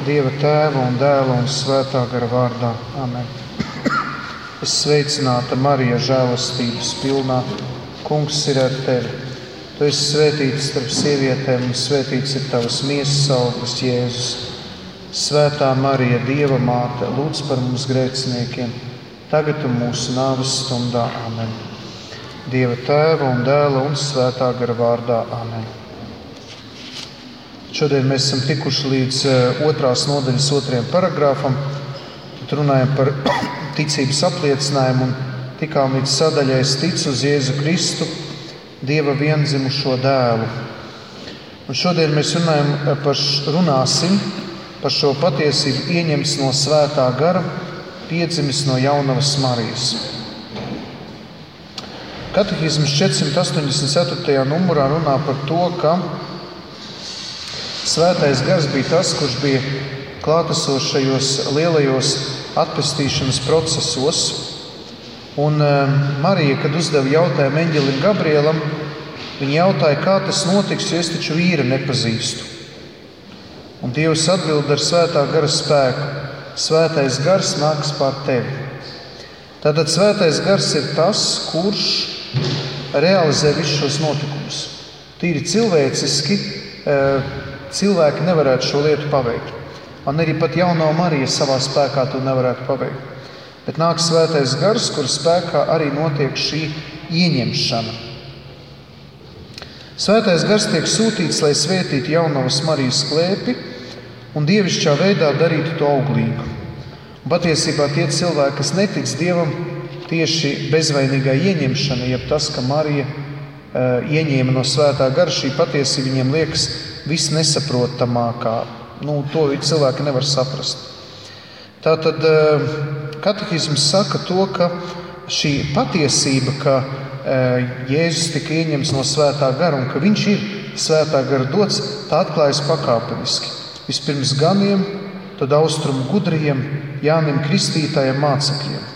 Dieva Tēva un Dēla un Svētā gara vārdā. Amen. Es sveicināta Marija, žēlastības pilnā. Kungs ir ar tevi. Tu esi svētīts starp sievietēm, un svētīts ir tavas miesas auglis, Jēzus. Svētā Marija, Dieva māte, lūdz par mums grēciniekiem, tagad un mūsu nāves stundā. Amen. Dieva Tēva un Dēla un Svētā gara vārdā. Amen. Šodien mēs esam tikuši līdz 2. nodaļas 2. paragrāfam. Tad runājam par ticības apliecinājumu un tikām līdz sadaļai es ticu uz Jēzu Kristu, Dieva viendzimušo dēlu. Un šodien mēs runāsim par šo patiesību ieņemts no Svētā gara, piedzimis no jaunavas Marijas. Katehisms 484. numurā runā par to, ka Svētais gars bija tas, kurš bija klātesošajos lielajos atpestīšanas procesos. Un Marija, kad uzdeva jautājumu eņģelim Gabrielam, viņa jautāja, kā tas notiks, jo es taču vīru nepazīstu. Un Dievs atbild ar Svētā gara spēku: Svētais gars nāks pār tevi. Tātad Svētais gars ir tas, kurš realizē visus šos notikumus. Tīri cilvēciski cilvēki nevarētu šo lietu paveikt. Un arī pat jaunā Marija savā spēkā to nevarētu paveikt. Bet nāk Svētais gars, kur spēkā arī notiek šī ieņemšana. Svētais gars tiek sūtīts, lai svētītu jaunavas Marijas klēpi un dievišķā veidā darītu to auglīgu. Un patiesībā tie cilvēki, kas netic Dievam, tieši bezvainīgā ieņemšana, jeb tas, ka Marija ieņēma no Svētā gara, šī patiesība viņiem liekas visnesaprotamākā. To cilvēki nevar saprast. Tātad katehisms saka to, ka šī patiesība, ka Jēzus tika ieņemts no Svētā gara un ka viņš ir Svētā gara dots, tā atklājas pakāpeniski. Vispirms ganiem, tad austrumu gudriem, Jānim Kristītājiem mācekļiem.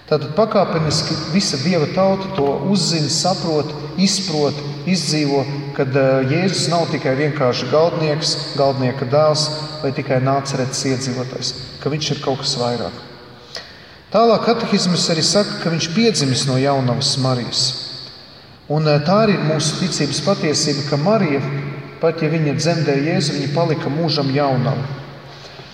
Tātad pakāpeniski visa Dieva tauta to uzzina, saprot, izprot, izdzīvo, kad Jēzus nav tikai vienkārši galdnieks, galdnieka dēls vai tikai Nāceretes iedzīvotājs, ka viņš ir kaut kas vairāk. Tālāk katehisms arī saka, ka viņš piedzimis no jaunavas Marijas. Un tā arī ir mūsu ticības patiesība, ka Marija, pat ja viņa dzemdēja Jēzu, viņa palika mūžam jaunava.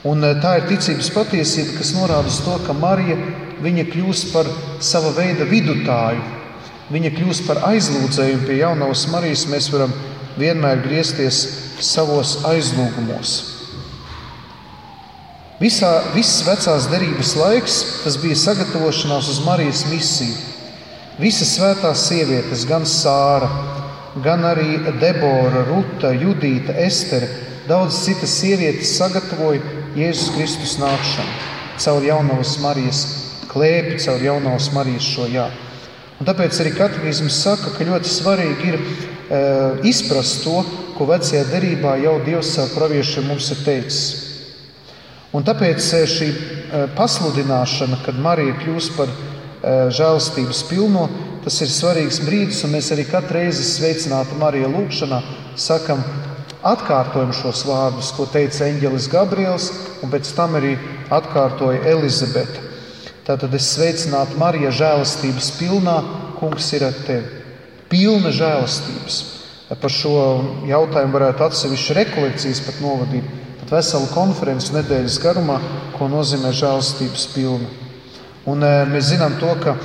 Un tā ir ticības patiesība, kas norāda uz to, ka Marija, viņa kļūst par sava veida vidutāju. Viņa kļūst par aizlūdzējumu pie jaunavas Marijas. Mēs varam vienmēr griezties savos aizlūgumos. Viss vecās derības laiks, tas bija sagatavošanās uz Marijas misiju. Visas svētās sievietes, gan Sāra, gan arī Debora, Ruta, Judīta, Estere, daudz citas sievietes sagatavoja Jēzus Kristus nākšanu caur jaunavas Marijas klēpi, caur jaunavas Marijas šo jā. Un tāpēc arī katehisms saka, ka ļoti svarīgi ir izprast to, ko vecajā derībā jau Dievs caur praviešiem mums ir teicis. Un tāpēc šī pasludināšana, kad Marija kļūst par žēlastības pilno, tas ir svarīgs brīdis, un mēs arī katru reizi sveicināti Marija lūgšanā sakam, atkārtojam šos vārdus, ko teica eņģelis Gabriels, un pēc tam arī atkārtoja Elizabete. Tātad es sveicinātu Marija, žēlastības pilnā, Kungs ir ar tevi. Pilna žēlastības. Par šo jautājumu varētu atsevišķi rekolekcijas pat novadīt, pat veselu konferenci nedēļas garumā, ko nozīmē žēlastības pilna. Un mēs zinām to, ka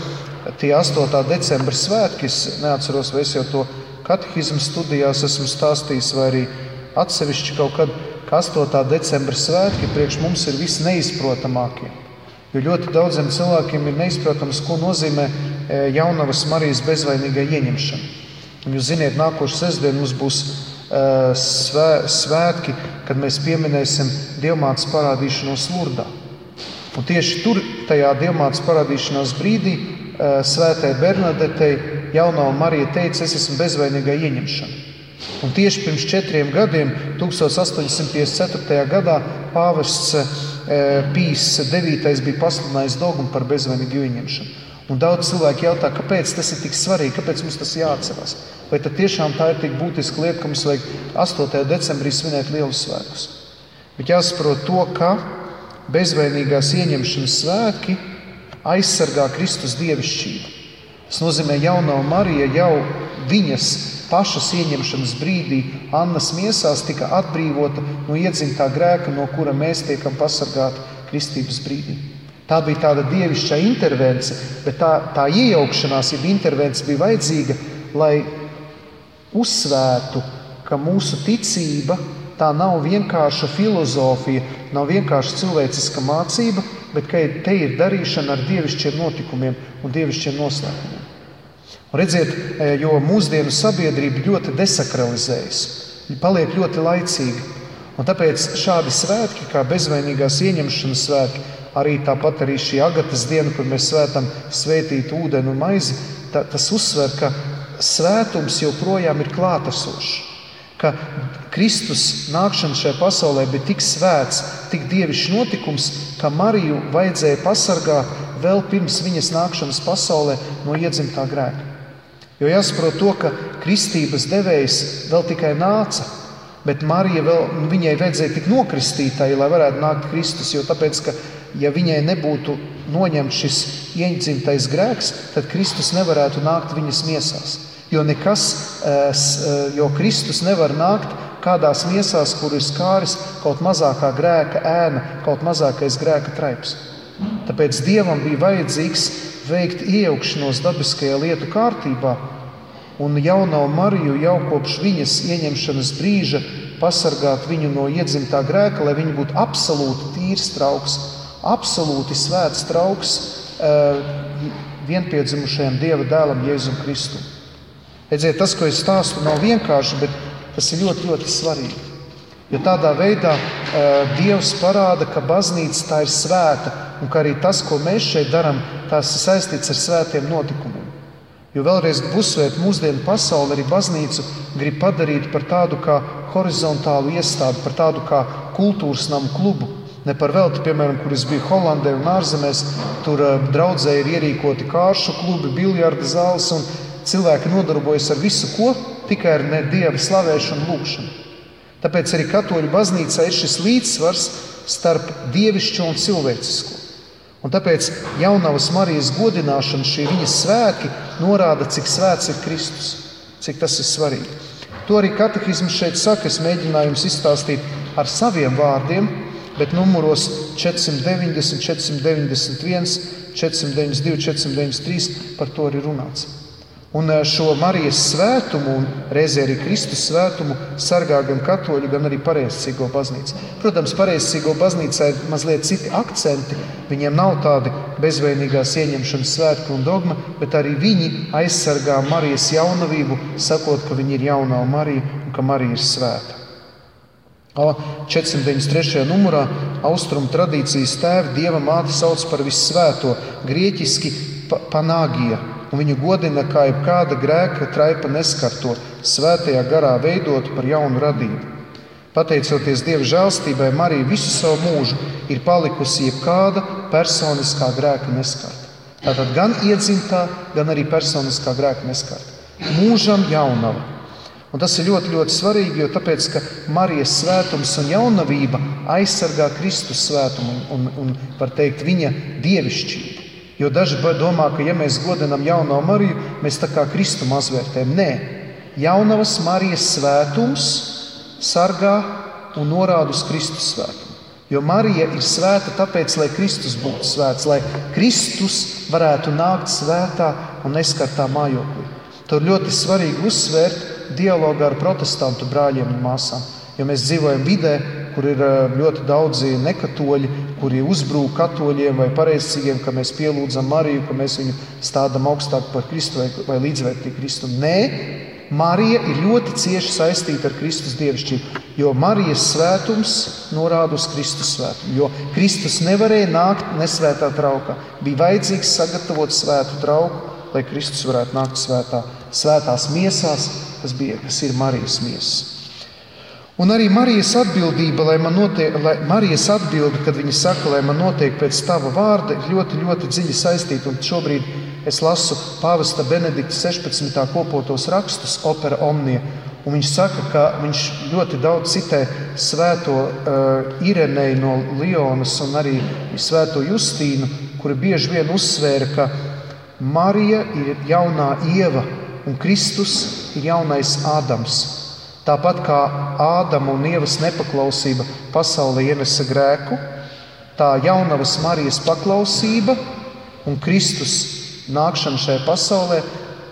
tie 8. decembra svētki, es neatceros, vai es jau to katehismu studijās esmu stāstījis, vai arī atsevišķi kaut kad, ka 8. decembra svētki priekš mums ir visi neizprotamākie. Jo ļoti daudziem cilvēkiem ir neizprotams, ko nozīmē jaunavas Marijas bezvainīgai ieņemšana. Un jūs ziniet, nākošu sestdienu mums būs svētki, kad mēs pieminēsim Dievmātes parādīšanos Lurdā. Un tieši tur, tajā Dievmātes parādīšanās brīdī, svētai Bernadetei jaunā Marija teica, es esmu bezvainīgai ieņemšana. Un tieši pirms 4 gadiem, 1854. gadā, pāvests Pīs IX bija pasludinājis dogmu par bezvainīgu ieņemšanu. Un daudz cilvēki jautā, kāpēc tas ir tik svarīgi, kāpēc mums tas jāatcerās. Vai tad tiešām tā ir tik būtiska lieta, ka mums vajag 8. decembrī svinēt lielus svētkus? Bet jāsaprot to, ka bezvainīgās ieņemšanas svētki aizsargā Kristus dievišķību. Tas nozīmē, jaunā Marija jau viņas pašas ieņemšanas brīdī Annas miesās tika atbrīvota no iedzimtā grēka, no kura mēs tiekam pasargāti kristības brīdī. Tā bija tāda dievišķā intervence, bet tā iejaukšanās, jeb intervence bija vajadzīga, lai uzsvērtu, ka mūsu ticība tā nav vienkārša filozofija, nav vienkārša cilvēciska mācība, bet ka te ir darīšana ar dievišķiem notikumiem un dievišķiem noslēpumiem. Un redziet, jo mūsdienu sabiedrība ļoti desakralizējas, viņa paliek ļoti laicīga. Un tāpēc šādi svētki, kā bezvainīgās ieņemšanas svētki, arī tāpat arī šī Agatas diena, kur mēs svētam svētīt ūdeni un maizi, tas uzsver, ka svētums joprojām ir klātesošs. Ka Kristus nākšana šajā pasaulē bija tik svēts, tik dievišķs notikums, ka Mariju vajadzēja pasargāt vēl pirms viņas nākšanas pasaulē no iedzimtā grēka. Jo jāsaprot to, ka kristības devējs vēl tikai nāca, bet Marija viņai vajadzēja tik nokristītai, lai varētu nākt Kristus, jo tāpēc, ka ja viņai nebūtu noņemts šis iedzimtais grēks, tad Kristus nevarētu nākt viņas miesās. Jo Kristus nevar nākt kādās miesās, kur ir skāris kaut mazākā grēka ēna, kaut mazākais grēka traips. Tāpēc Dievam bija vajadzīgs veikt iejaukšanos dabiskajā lietu kārtībā un jauno Mariju jau kopš viņas ieņemšanas brīža pasargāt viņu no iedzimtā grēka, lai viņa būtu absolūti tīrs trauks, absolūti svēts trauks vienpiedzimušajam Dieva dēlam Jēzum Kristum. Redziet, tas, ko es stāstu, nav vienkārši, bet tas ir ļoti, ļoti svarīgi. Jo tādā veidā Dievs parāda, ka baznīca tā ir svēta un ka arī tas, ko mēs šeit darām, tās ir saistīts ar svētiem notikumiem. Jo vēlreiz uzsvērt mūsdienu pasauli, arī baznīcu grib padarīt par tādu kā horizontālu iestādi, par tādu kā kultūras namu klubu. Ne par velti, piemēram, kur es biju Holandē un ārzemēs, tur draudzē ir ierīkoti kāršu klubi, biljarda zāles un cilvēki nodarbojas ar visu, ko tikai ar Dieva slavēšanu un lūkšanu. Tāpēc arī katoļu baznīcā ir šis līdzsvars starp dievišķo un cilvēcisko. Un tāpēc jaunavas Marijas godināšana, šie viņas svētki, norāda, cik svēts ir Kristus, cik tas ir svarīgi. To arī katehisms šeit saka, es mēģināju jums izstāstīt ar saviem vārdiem, bet numuros 490, 491, 492, 493 par to arī runāts. Un šo Marijas svētumu un reizē arī Kristus svētumu sargā gan katoļu, gan arī pareizcīgo baznīca. Protams, pareizcīgo baznīcā ir mazliet citi akcenti. Viņiem nav tādi bezvainīgās ieņemšanas svētki un dogma, bet arī viņi aizsargā Marijas jaunavību, sakot, ka viņa ir jaunā Marija un ka Marija ir svēta. 493. numurā austrumu tradīcijas tēvi Dieva māti sauc par vissvēto, grieķiski panāgija, un viņu godina kā jebkāda grēka traipa neskarto, svētajā garā veidot par jaunu radību. Pateicoties Dieva žēlstībai, Marija visu savu mūžu ir palikusi jebkāda personiskā grēka neskarta. Tātad gan iedzimtā, gan arī personiskā grēka neskarta. Mūžam jaunava. Un tas ir ļoti, ļoti svarīgi, jo tāpēc, ka Marijas svētums un jaunavība aizsargā Kristus svētumu un var teikt, viņa dievišķību. Jo daži domā, ka ja mēs godinām jauno Mariju, mēs tā kā Kristu mazvērtējam. Nē, jaunavas Marijas svētums sargā un norāda uz Kristus svētumu. Jo Marija ir svēta tāpēc, lai Kristus būtu svēts, lai Kristus varētu nākt svētā un neskartā mājoklī. To ļoti svarīgi uzsvērt dialogā ar protestantu brāļiem un māsām. Jo mēs dzīvojam vidē, kur ir ļoti daudzi nekatoļi, kuri uzbrūk katoļiem vai pareizcīgiem, ka mēs pielūdzam Mariju, ka mēs viņu stādam augstāk par Kristu vai līdzvērtīgi Kristu. Nē, Marija ir ļoti cieši saistīta ar Kristus dievišķību, jo Marijas svētums norāda uz Kristus svētumu. Jo Kristus nevarēja nākt nesvētā traukā. Bija vajadzīgs sagatavot svētu trauku, lai Kristus varētu nākt svētās miesās, kas ir Marijas miesas. Un arī Marijas atbildība, Marijas atbilde, kad viņa saka, lai man notiek pēc tava vārda, ir ļoti, ļoti dziļi saistīta. Un šobrīd es lasu pāvesta Benedikta 16. kopotos rakstus, opera omnia. Un viņš saka, ka viņš ļoti daudz citē svēto Ireneju no Lionas un arī svēto Justīnu, kuri bieži vien uzsvēra, ka Marija ir jaunā Ieva un Kristus ir jaunais Ādams. Tāpat kā Ādama un Ievas nepaklausība pasaulē ienesa grēku, tā jaunavas Marijas paklausība un Kristus nākšana šajā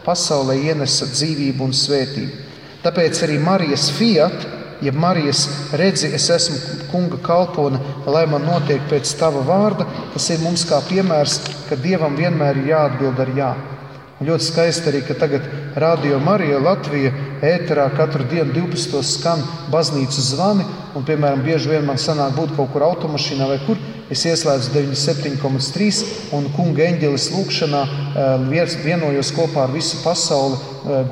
pasaulē ienesa dzīvību un svētību. Tāpēc arī Marijas fiat, jeb Marijas redzi, es esmu kunga kalpone, lai man notiek pēc tava vārda, tas ir mums kā piemērs, ka Dievam vienmēr ir jāatbild ar jā. Un ļoti skaisti arī, ka tagad Radio Marija Latvija ēterā katru dienu 12. skan baznīcu zvani, un, piemēram, bieži vien man sanāk būt kaut kur automašīnā vai kur, es ieslēdzu 97,3 un kunga eņģelis lūkšanā vienojos kopā ar visu pasauli,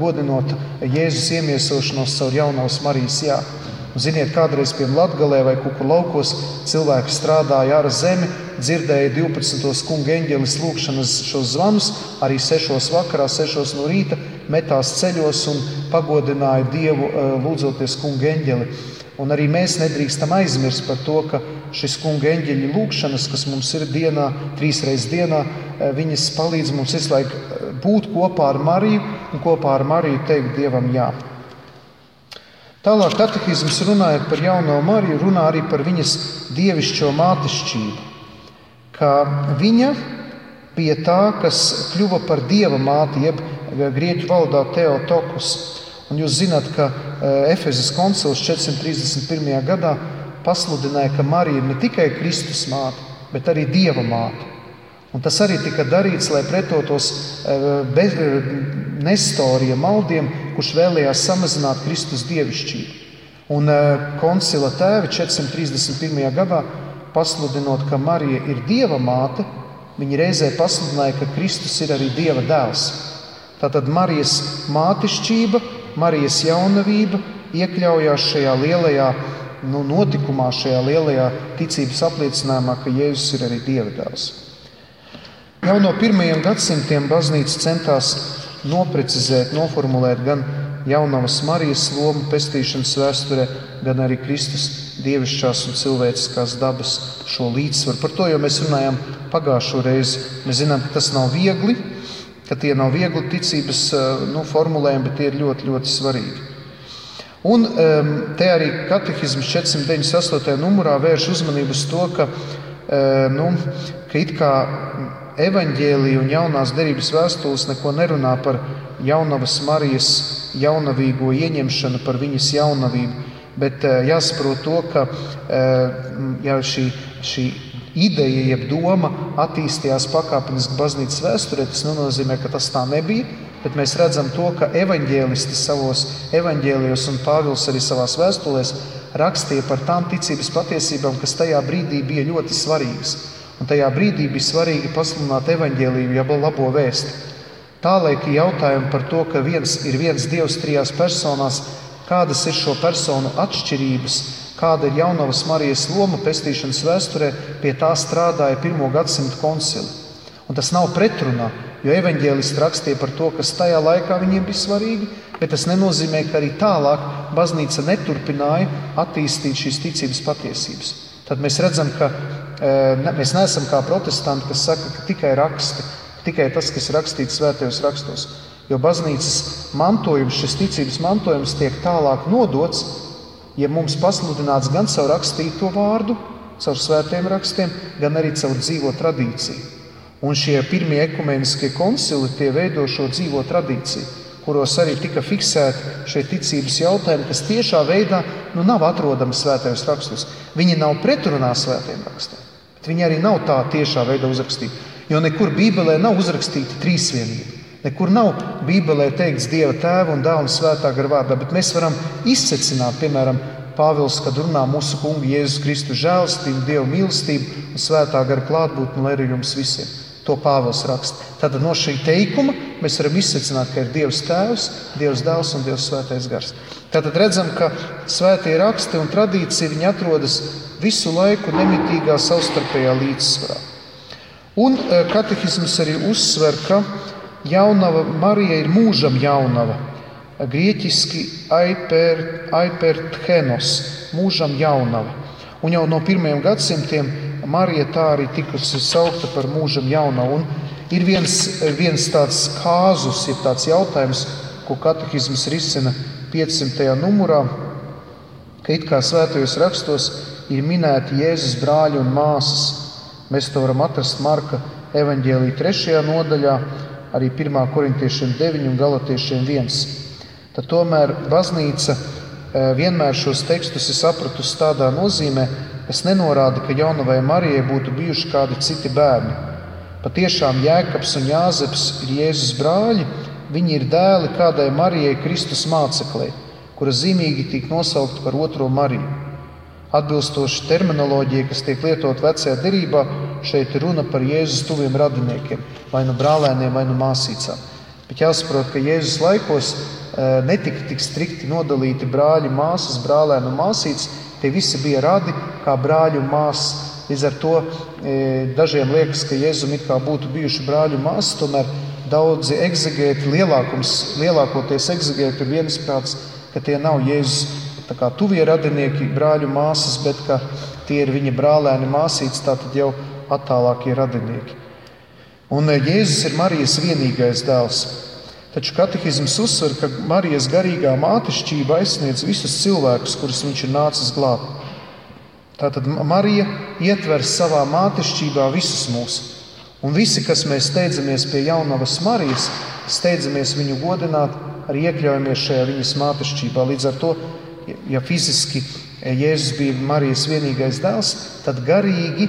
godinot Jēzus iemiesošanos caur jaunavas Marijas jā. Un ziniet, kādreiz pie Latgalē vai kaut kur laukos cilvēki strādāja ar zemi, dzirdēja 12. kunga eņģelis lūkšanas šos zvanus, arī 6 vakarā, 6 no rīta metās ceļos un pagodināja Dievu lūdzoties kunga eņģeli. Un arī mēs nedrīkstam aizmirst par to, ka šis kunga eņģeļa lūkšanas, kas mums ir dienā, 3 reizes dienā, viņas palīdz mums visu laiku būt kopā ar Mariju un kopā ar Mariju teikt Dievam jā. Tālāk katehisms runājot par jauno Mariju, runā arī par viņas dievišķo mātešķību, ka viņa bija tā, kas kļuva par Dieva māti, jeb grieķu valodā Theotokos. Un jūs zināt, ka Efezes koncils 431. gadā pasludināja, ka Marija ir ne tikai Kristus māte, bet arī Dieva māte. Un tas arī tika darīts, lai pretotos Nestorija maldiem, kurš vēlējās samazināt Kristus dievišķību. Un koncila tēvi 431. gadā, pasludinot, ka Marija ir Dieva māte, viņi reizē pasludināja, ka Kristus ir arī Dieva dēls. Tātad Marijas mātešķība, Marijas jaunavība iekļaujās šajā lielajā notikumā, šajā lielajā ticības apliecinājumā, ka Jēzus ir arī Dieva dēls. Jau no 1. gadsimtiem baznīca centās noprecizēt, noformulēt gan jaunavas Marijas lomu pestīšanas vēsturē, gan arī Kristus dievišķās un cilvēciskās dabas šo līdzsvaru. Par to jau mēs runājām pagājušo reizi. Mēs zinām, ka tas nav viegli, ka tie nav viegli ticības formulējumi, bet tie ir ļoti, ļoti svarīgi. Un te arī katehisms 498. numurā vērš uzmanību uz to, ka it kā evaņģēlija un jaunās derības vēstules neko nerunā par jaunavas Marijas jaunavīgo ieņemšanu, par viņas jaunavību, bet jāsaprot to, ka šī ideja, jeb doma attīstījās pakāpeniski baznīcas vēsturē, tas nenozīmē, ka tas tā nebija, bet mēs redzam to, ka evaņģēlisti savos evaņģēlijos un Pāvils arī savās vēstulēs rakstīja par tām ticības patiesībām, kas tajā brīdī bija ļoti svarīgas. Un tajā brīdī bija svarīgi pasludināt evaņģēliju, jeb labo vēsti. Tālaika jautājumi par to, ka ir viens Dievs 3 personās, kādas ir šo personu atšķirības, kāda ir jaunavas Marijas loma pestīšanas vēsturē, pie tā strādāja 1. gadsimta koncili. Un tas nav pretrunā, jo evaņģēlisti rakstīja par to, kas tajā laikā viņiem bija svarīgi, bet tas nenozīmē, ka arī tālāk baznīca neturpināja attīstīt šīs ticības patiesības. Tad mēs redzam, ka mēs neesam kā protestanti, kas saka, ka tikai raksti, tikai tas, kas rakstīts svētajos rakstos. Jo baznīcas mantojums, šis ticības mantojums tiek tālāk nodots, ja mums pasludināts gan caur rakstīto vārdu, caur svētajiem rakstiem, gan arī caur dzīvo tradīciju. Un šie pirmie ekumeniskie koncili tie veido šo dzīvo tradīciju, kuros arī tika fiksēti šie ticības jautājumi, kas tiešā veidā nav atrodami svētajos rakstos. Viņi nav pretrunā svētajiem rakstiem, bet viņi arī nav tā tiešā veidā uzrakstīti. Jo nekur Bībelē nav uzrakstīta trīsvienība. Nekur nav Bībelē teikts Dieva Tēva un Dēla un Svētā gara vārdā, bet mēs varam izsecināt, piemēram, Pāvils, kad runā mūsu kungu Jēzus Kristu žēlastību, Dieva mīlestību un Svētā gara klātbūtni, lai arī jums visiem. To Pāvils raksta. Tātad no šī teikuma mēs varam izsecināt, ka ir Dievs Tēvs, Dievs Dēls un Dievs Svētais gars. Tātad redzam, ka svētie raksti un tradīcija viņi atrodas visu laiku nemitīgā savstarpējā līdzsvarā. Un katehisms arī uzsver, ka jaunava Marija ir mūžam jaunava. grieķiski aiperthenos, mūžam jaunava. Un jau no 1. gadsimtiem Marija tā arī tikusi saukta par mūžam jaunavu. Un ir viens tāds kāzus, ir tāds jautājums, ko katehisms risina 500. numurā, ka it kā svētajos rakstos ir minēti Jēzus brāļi un māsas. Mēs to varam atrast Marka evaņģēlija 3. nodaļā, arī 1. korintiešiem 9 un galatiešiem 1. Tad tomēr baznīca vienmēr šos tekstus ir sapratusi tādā nozīmē, kas nenorāda, ka jaunavai Marijai būtu bijuši kādi citi bērni. Patiešām Jēkabs un Jāzeps ir Jēzus brāļi, viņi ir dēli kādai Marijai Kristus māceklei, kura zīmīgi tiek nosaukta par otro Mariju. Atbilstoši terminoloģijai, kas tiek lietot vecajā derībā, šeit runa par Jēzus tuviem radiniekiem, vai nu brālēniem, vai nu māsīcām. Bet jāsaprot, ka Jēzus laikos netika tik strikti nodalīti brāļi, māsas, brālēni un māsītes. Tie visi bija radi kā brāļi un māsas. Līdz ar to dažiem liekas, ka Jēzum it kā būtu bijuši brāļi un māsas, tomēr daudzi egzegēti, lielākoties egzegēti ir viensprāts, ka tie nav Jēzus tā kā tuvie radinieki, brāļu māsas, bet ka tie ir viņa brālēni māsītes, tātad jau attālākie radinieki. Un Jēzus ir Marijas vienīgais dēls. Taču katehisms uzsver, ka Marijas garīgā mātešķība aizsniedz visus cilvēkus, kurus viņš ir nācis glābt. Tātad Marija ietver savā mātešķībā visus mūs. Un visi, kas mēs steidzamies pie jaunavas Marijas, steidzamies viņu godināt, arī iekļaujamies šajā viņas mātešķībā. Līdz ar to, ja fiziski Jēzus bija Marijas vienīgais dēls, tad garīgi,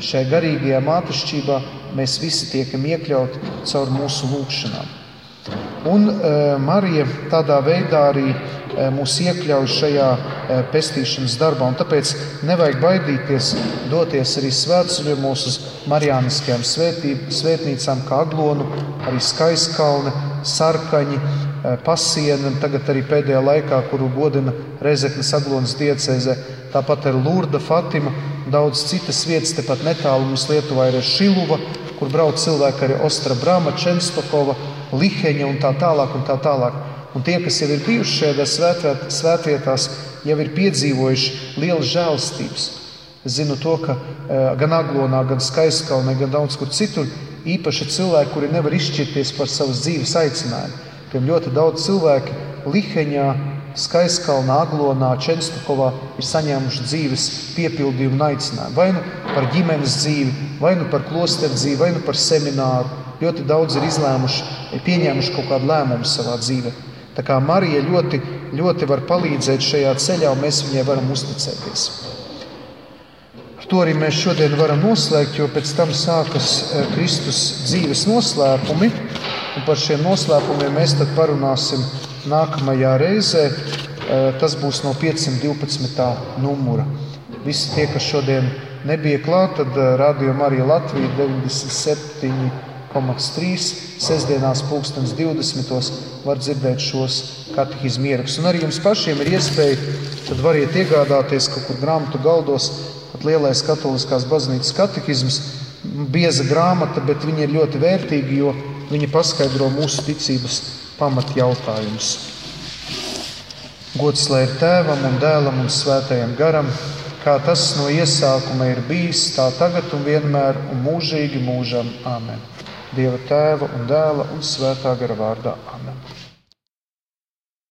šajā garīgajā mātešķībā mēs visi tiekam iekļauti caur mūsu lūgšanām. Un Marija tādā veidā arī mūs iekļauj šajā pestīšanas darbā. Un tāpēc nevajag baidīties doties arī svētceļojumos uz marijāniskajām svētnīcām, kā Aglonu, arī Skaiskalne, Sarkaņi, Pasiena, tagad arī pēdējā laikā, kuru godina Rezeknes Aglonas diecēzē. Tāpat ir Lurda, Fatima, daudz citas vietas, tepat netālu mums Lietuvā ir Šiluva, kur brauc cilvēki arī Ostra Brama, Čenstokova, Liheņa un tā tālāk un tā tālāk. Un tie, kas jau ir bijuši šajā svētvietās, jau ir piedzīvojuši lielas žēlstības. Es zinu to, ka gan Aglonā, gan Skaiskalnē, gan daudz kur citur īpaši cilvēki, kuri nevar izšķirties par savas dzīves aicinājumu. Tiem ļoti daudz cilvēki Liheņā, Skaiskalnā, Aglonā, Čenstokovā ir saņēmuši dzīves piepildījumu un aicinājumu. Vai nu par ģimenes dzīvi, vai nu par klosteru dzīvi, vai nu par semināru. Ļoti daudz ir pieņēmuši kaut kādu lēmumu savā dzīvē. Tā kā Marija ļoti, ļoti var palīdzēt šajā ceļā, un mēs viņai varam uzticēties. Ar to arī mēs šodien varam noslēgt, jo pēc tam sākas Kristus dzīves noslēpumi, un par šiem noslēpumiem mēs tad parunāsim nākamajā reizē. Tas būs no 512. numura. Visi tie, kas šodien nebija klāt, tad Radio Marija Latvija 97,3 sestdienās 2020. var dzirdēt šos katehismu ierakstus. Un arī jums pašiem ir iespēja, tad variet iegādāties kaut kur grāmatu galdos, pat lielais katoliskās baznīcas katehisms, bieza grāmata, bet viņa ir ļoti vērtīga, jo viņa paskaidro mūsu ticības pamatjautājumus. Gods lai ir Tēvam un Dēlam un Svētajam garam, kā tas no iesākuma ir bijis, tā tagad un vienmēr un mūžīgi mūžam. Āmen. Dieva Tēva un Dēla un Svētā gara vārdā. Āmen.